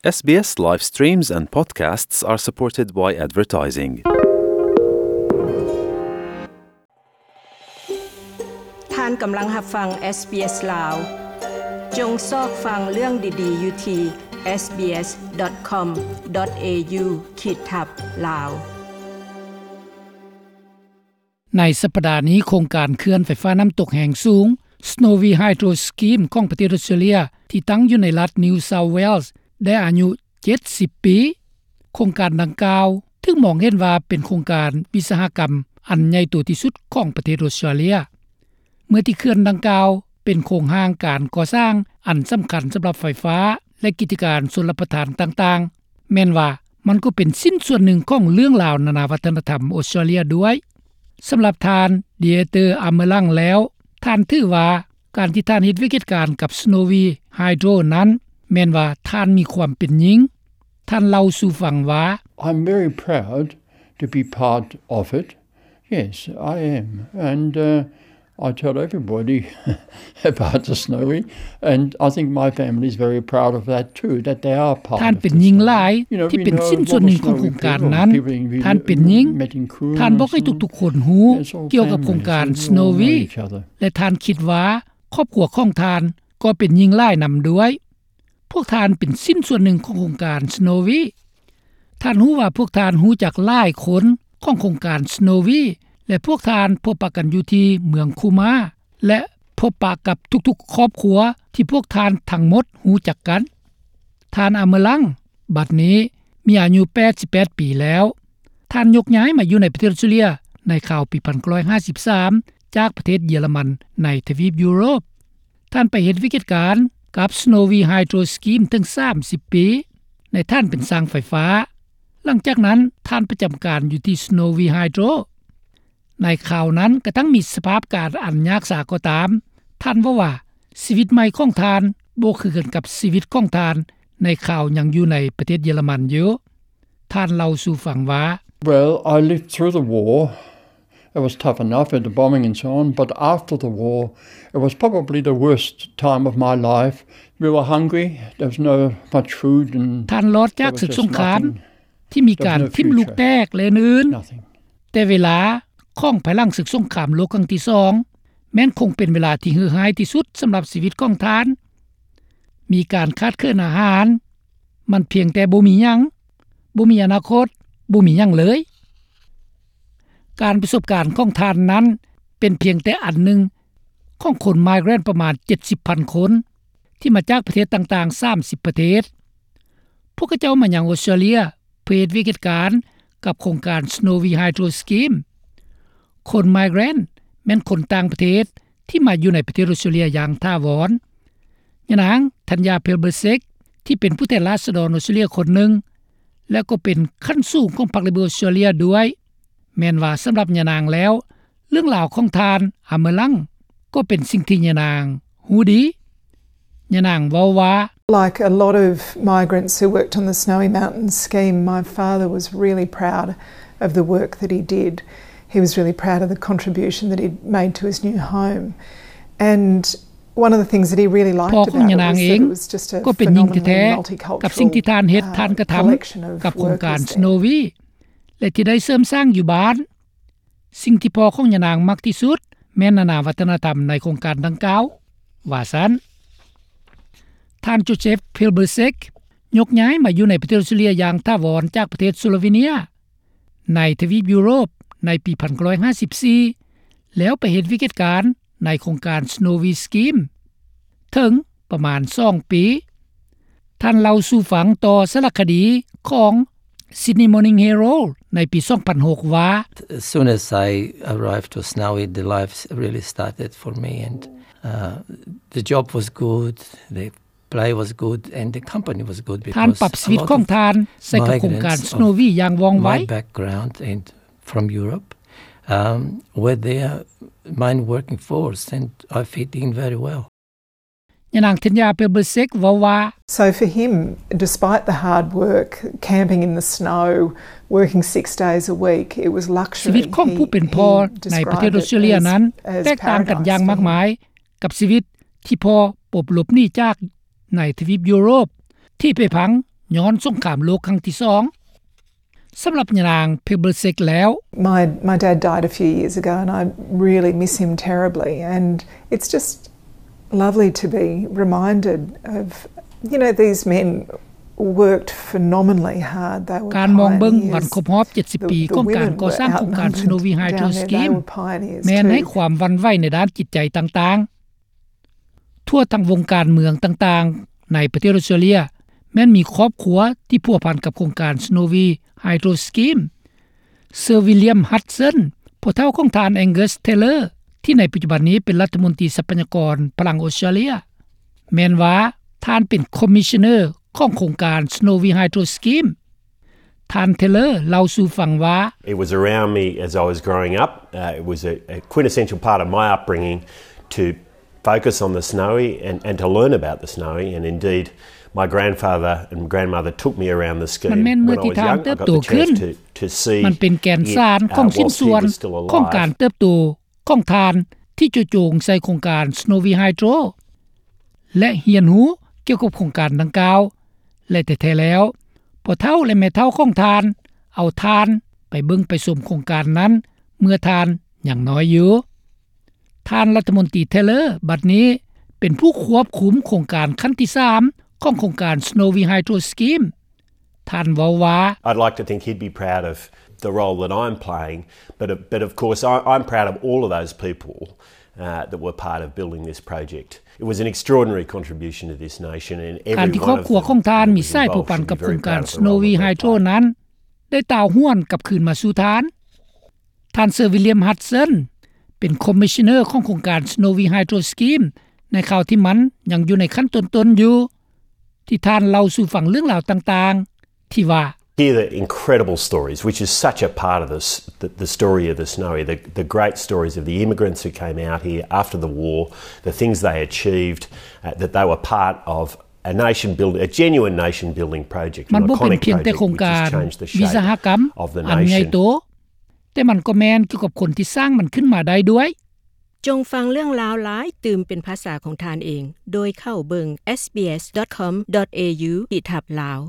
SBS live streams and podcasts are supported by advertising. ທ່ານກຳລັງຮັບຟັງ ເອສບີເອສ ລາວ. ຈົ່ງຊອກຟັງເລື່ອງດີໆຢູ່ທີ່ SBS dot com dot au ຂີດທັບ ລາວ. ໃນສັບປະດານີ້, ໂຄງການເຂື່ອນໄຟຟ້ານ້ຳຕົກແຮງສູງ Snowy Hydro Scheme ຂອງປະເທດອົດສະຕຣາເລຍ ທີ່ຕັ້ງຢູ່ໃນລັດ New South Wales ໄດ້ອາຍຸເຈັດສິບປີ. ໂຄງການດັ່ງກ່າວຖືກມອງເຫັນວ່າເປັນໂຄງການວິສາຫະກຳອັນໃຫຍ່ໂຕທີ່ສຸດຂອງປະເທດອົດສະຕຣາເລຍ. ເມື່ອທີ່ເຂື່ອນດັ່ງກ່າວເປັນໂຄງຮ່າງການກໍ່ສ້າງອັນສຳຄັນສຳລັບໄຟຟ້າ ແລະ ກິດຈະການຊົນລະປະທານຕ່າງໆ, ແມ່ນວ່າມັນກໍເປັນຊິ້ນສ່ວນໜຶ່ງຂອງເລື່ອງລາວນານາວັດທະນະທຳອົດສະຕຣາເລຍດ້ວຍ. ສຳລັບທ່ານ Dieter Amelang ແລ້ວ, ທ່ານຖືວ່າການທີ່ທ່ານເຮັດວຽກເຮັດການກັບ Snowy Hydro ນັ້ນ ແມ່ນວ່າທ່ານມີຄວາມເປັນຍິງ. ທ່ານເລົ່າສູ່ຟັງວ່າ, I'm very proud to be part of it. Yes, I am. And, uh, I tell everybody about the Snowy, and I think my family is very proud of that too, that they are part of the Snowy. ທ່ານເປັນຍິງຫຼາຍທີ່ເປັນຊິ້ນສ່ວນໜຶ່ງຂອງໂຄງການນັ້ນ. ທ່ານເປັນຍິງ. ທ່ານບອກໃຫ້ທຸກໆຄົນຮູ້ກ່ຽວກັບໂຄງການ Snowy ແລະ ທ່ານຄິດວ່າຄອບຄົວຂອງທ່ານກໍເປັນຍິງຫຼາຍນຳດ້ວຍ. ພວກທ່ານເປັນຊິ້ນສ່ວນໜຶ່ງຂອງໂຄງການ Snowy. ທ່ານຮູ້ວ່າພວກທ່ານຮູ້ຈັກຫຼາຍຄົນຂອງໂຄງການ Snowy ແລະ ພວກທ່ານພົບປະກັນຢູ່ທີ່ເມືອງຄູມາ ແລະ ພົບປະກັບທຸກໆຄອບຄົວທີ່ພວກທ່ານທັງໝົດຮູ້ຈັກກັນ. ທ່ານ Amelang ບັດນີ້ມີອາຍຸແປດສິບແປດປີແລ້ວ. ທ່ານຍົກຍ້າຍມາຢູ່ໃນປະເທດອົດສະຕຣາເລຍໃນຄາວປີພັນເກົ້າຮ້ອຍຫ້າສິບສາມ ຈາກປະເທດເຢຍລະມັນໃນທະວີບຢູໂຣບ. ທ່ານໄປເຮັດວຽກເຮັດການກັບ Snowy Hydro Scheme ເຖິງສາມສິບປີ ໃນຖານເປັນຊ່າງໄຟຟ້າ. ຫຼັງຈາກນັ້ນທ່ານປະຈຳການຢູ່ທີ່ Snowy Hydro. ໃນຄາວນັ້ນກະທັ່ງມີສະພາບການອັນຍາກສາກໍຕາມ, ທ່ານເວົ້າວ່າຊີວິດໃໝ່ຂອງທ່ານບໍ່ຄືກັນກັບຊີວິດຂອງທ່ານໃນຄາວຍັງຢູ່ໃນປະເທດເຢຍລະມັນຢູ່. ທ່ານເລົ່າສູ່ຟັງວ່າ, Well, I lived through the war. It was tough enough with the bombing and so on, but after the war, it was probably the worst time of my life. We were hungry, there was no much food and ທ່ານລອດຈາກສຶກສົງຄາມທີ່ມີການຖິ້ມລູກແຕກ ແລະ ອື່ນໆ, ແຕ່ເວລາຂອງພາຍຫຼັງສຶກສົງຄາມໂລກຄັ້ງທີສອງ ແມ່ນຄົງເປັນເວລາທີ່ເຫື່ອຮ້າຍທີ່ສຸດສຳລັບຊີວິດຂອງທ່ານ. ມີການຂາດເຂີນອາຫານ, ມັນພຽງແຕ່ບໍ່ມີຫຍັງ, ບໍ່ມີອະນາຄົດ, ບໍ່ມີຫຍັງເລີຍ. ການປະສົບການຂອງທ່ານນັ້ນເປັນພຽງແຕ່ອັນໜຶ່ງຂອງຄົນ migrant ປະມານເຈັດສິບພັນຄົນ ທີ່ມາຈາກປະເທດຕ່າງໆສາມສິບປະເທດ. ພວກເຂົາເຈົ້າມາຍັງອົດສະຕຣາເລຍເພື່ອເຮັດວຽກເຮັດການກັບໂຄງການ Snowy Hydro Scheme. ຄົນ migrant ແມ່ນຄົນຕ່າງປະເທດ ທີ່ມາຢູ່ໃນປະເທດອົດສະຕຣາເລຍຢ່າງຖາວອນ. ຍານາງ ທັນຍາ ເພລເບີເຊັກ ທີ່ເປັນຜູ້ແທນລາຊະດອນອົດສະຕຣາເລຍຄົນໜຶ່ງ ແລະ ກໍເປັນຂັ້ນສູງຂອງພັກເລເບີອົດສະຕຣາເລຍດ້ວຍ, ແມ່ນວ່າສຳລັບຍານາງແລ້ວ ເລື່ອງລາວຂອງທ່ານ ອາເມີລັງ ກໍເປັນສິ່ງທີ່ຍານາງຮູ້ດີ. ຍານາງເວົ້າວ່າ, Like a lot of migrants who worked on the Snowy Mountains scheme, my father was really proud of the work that he did. He was really proud of the contribution that he'd made to his new home. And one of the things that he really liked about it was that it was just a phenomenally multicultural collection of workers there. ພໍ່ຂອງຍານາງເອງກໍເປັນຍິງແທ້ໆ ກັບສິ່ງທີ່ທ່ານເຮັດທ່ານກະທຳກັບໂຄງການ Snowy ແລະ ທີ່ໄດ້ເສີມສ້າງຢູ່ບ້ານ. ສິ່ງທີ່ພໍ່ຂອງຍານາງມັກທີ່ສຸດແມ່ນນານາວັດທະນະທຳໃນໂຄງການດັ່ງກ່າວ, ວ່າຊັ້ນ. ທ່ານ ໂຈເຊັບ ເພລເບີເຊັກ ຍົກຍ້າຍມາຢູ່ໃນປະເທດອົດສະຕຣາເລຍຢ່າງຖາວອນຈາກປະເທດສະໂລເວເນຍ ໃນທະວີບຢູໂຣບໃນປີພັນເກົ້າຮ້ອຍຫ້າສິບສີ່ ແລ້ວໄປເຮັດວຽກເຮັດການໃນໂຄງການ Snowy Scheme ເຖິງປະມານສອງປີ. ທ່ານເລົ່າສູ່ຟັງຕໍ່ສາລະຄະດີຂອງ Sydney Morning Herald ໃນປີສອງພັນຫົກວ່າ, As soon as I arrived to Snowy, the life really started for me, and, uh, the job was good, the pay was good, and the company was good because a lot of migrants of my background and from Europe, um, were there, mine working force, and I fit in very well. ຍານາງ ທັນຍາ ເພລເບີເຊັກ ເວົ້າວ່າ, So for him, despite the hard work, camping in the snow, working six days a week, it was luxury. ຊີວິດຂອງຜູ້ເປັນພໍ່ໃນປະເທດອົດສະຕຣາເລຍນັ້ນແຕກຕ່າງກັນຢ່າງມາກມາຍກັບຊີວິດທີ່ພໍ່ປົບຫຼົບໜີຈາກໃນທະວີບຢູໂຣບ ທີ່ໄປພັງ ຍ້ອນສົງຄາມໂລກຄັ້ງທີສອງ. ສຳລັບຍານາງ Pavlicek ແລ້ວ, My, my dad died a few years ago and I really miss him terribly, and it's just lovely to be reminded of, you know, these men worked phenomenally hard. They were ການມອງເບິ່ງວັນຄົບຮອບເຈັດສິບປີຂອງການກໍ່ສ້າງໂຄງການ Snowy Hydro Scheme ແມ່ນໃຫ້ຄວາມຫວັ່ນໄຫວໃນດ້ານຈິດໃຈຕ່າງໆ. ທົ່ວທັງວົງການເມືອງຕ່າງໆໃນປະເທດອອສເຕຣເລຍ ແມ່ນມີຄອບຄົວທີ່ພົວພັນກັບໂຄງການ Snowy Hydro Scheme. Sir William Hudson ພໍ່ເຖົ້າຂອງທ່ານ Angus Taylor ທີ່ໃນປັດຈຸບັນນີ້ເປັນລັດຖະມົນຕີຊັບພະຍາກອນພະລັງອອສເຕຣເລຍ ແມ່ນວ່າທ່ານເປັນ Commissioner ຂອງໂຄງການ Snowy Hydro Scheme. ທ່ານ Taylor ເລົ່າສູ່ຟັງວ່າ, It was around me as I was growing up. Uh, it was a, a quintessential part of my upbringing to focus on the Snowy and, and to learn about the Snowy. And indeed, my grandfather and grandmother took me around the scheme. ມັນແມ່ນເມື່ອທີ່ທ່ານເຕີບໂຕຂຶ້ນ. ມັນເປັນແກ່ນສານຂອງຊິ້ນສ່ວນຂອງການເຕີບໂຕຂອງທ່ານທີ່ເຈາະຈົງໃສ່ໂຄງການ Snowy Hydro ແລະ ຮຽນຮູ້ກ່ຽວກັບໂຄງການດັ່ງກ່າວ ແລະ ແທ້ໆແລ້ວ ພໍ່ເຖົ້າ ແລະ ແມ່ເຖົ້າຂອງທ່ານ ເອົາທ່ານໄປເບິ່ງໄປຊົມໂຄງການນັ້ນເມື່ອທ່ານຍັງນ້ອຍຢູ່. ທ່ານລັດຖະມົນຕີ Taylor ບັດນີ້ເປັນຜູ້ຄວບຄຸມໂຄງການຂັ້ນທີສາມຂອງໂຄງການ Snowy Hydro Scheme. ທ່ານເວົ້າວ່າ, I'd like to think he'd be proud of the role that I'm playing, but, but of course I, I'm proud of all of those people, uh, that were part of building this project. It was an extraordinary contribution to this nation, and every one of them that was involved should be very proud of the role that they played. ການທີ່ຄອບຄົວຂອງທ່ານມີສ່ວນພົວພັນກັບໂຄງການ Snowy Hydro ນັ້ນ ໄດ້ຕ່າວຫວນກັບຄືນມາສູ່ທ່ານ. ທ່ານ Sir William Hudson ເປັນ Commissioner ຂອງໂຄງການ Snowy Hydro Scheme ໃນຄາວທີ່ມັນຍັງຢູ່ໃນຂັ້ນຕົ້ນໆຢູ່ ທີ່ທ່ານເລົ່າສູ່ຟັງເລື່ອງລາວຕ່າງໆ ທີ່ວ່າ, Hear the incredible stories, which is such a part of this, the, the story of the Snowy, the, the great stories of the immigrants who came out here after the war, the things they achieved, uh, that they were part of a nation build, a genuine nation building project, an iconic project which has changed the shape of the nation. ມັນບໍ່ເປັນພຽງແຕ່ໂຄງການວິສະຫະກຳອັນໃຫຍ່ໂຕ, ແຕ່ມັນກໍແມ່ນກ່ຽວກັບຄົນທີ່ສ້າງມັນຂຶ້ນມາໄດ້ດ້ວຍ. ຈົ່ງຟັງເລື່ອງລາວຫຼາຍຕື່ມເປັນພາສາຂອງທ່ານເອງ ໂດຍເຂົ້າເບິ່ງ SBS.com.au ຂີດທັບ Lao.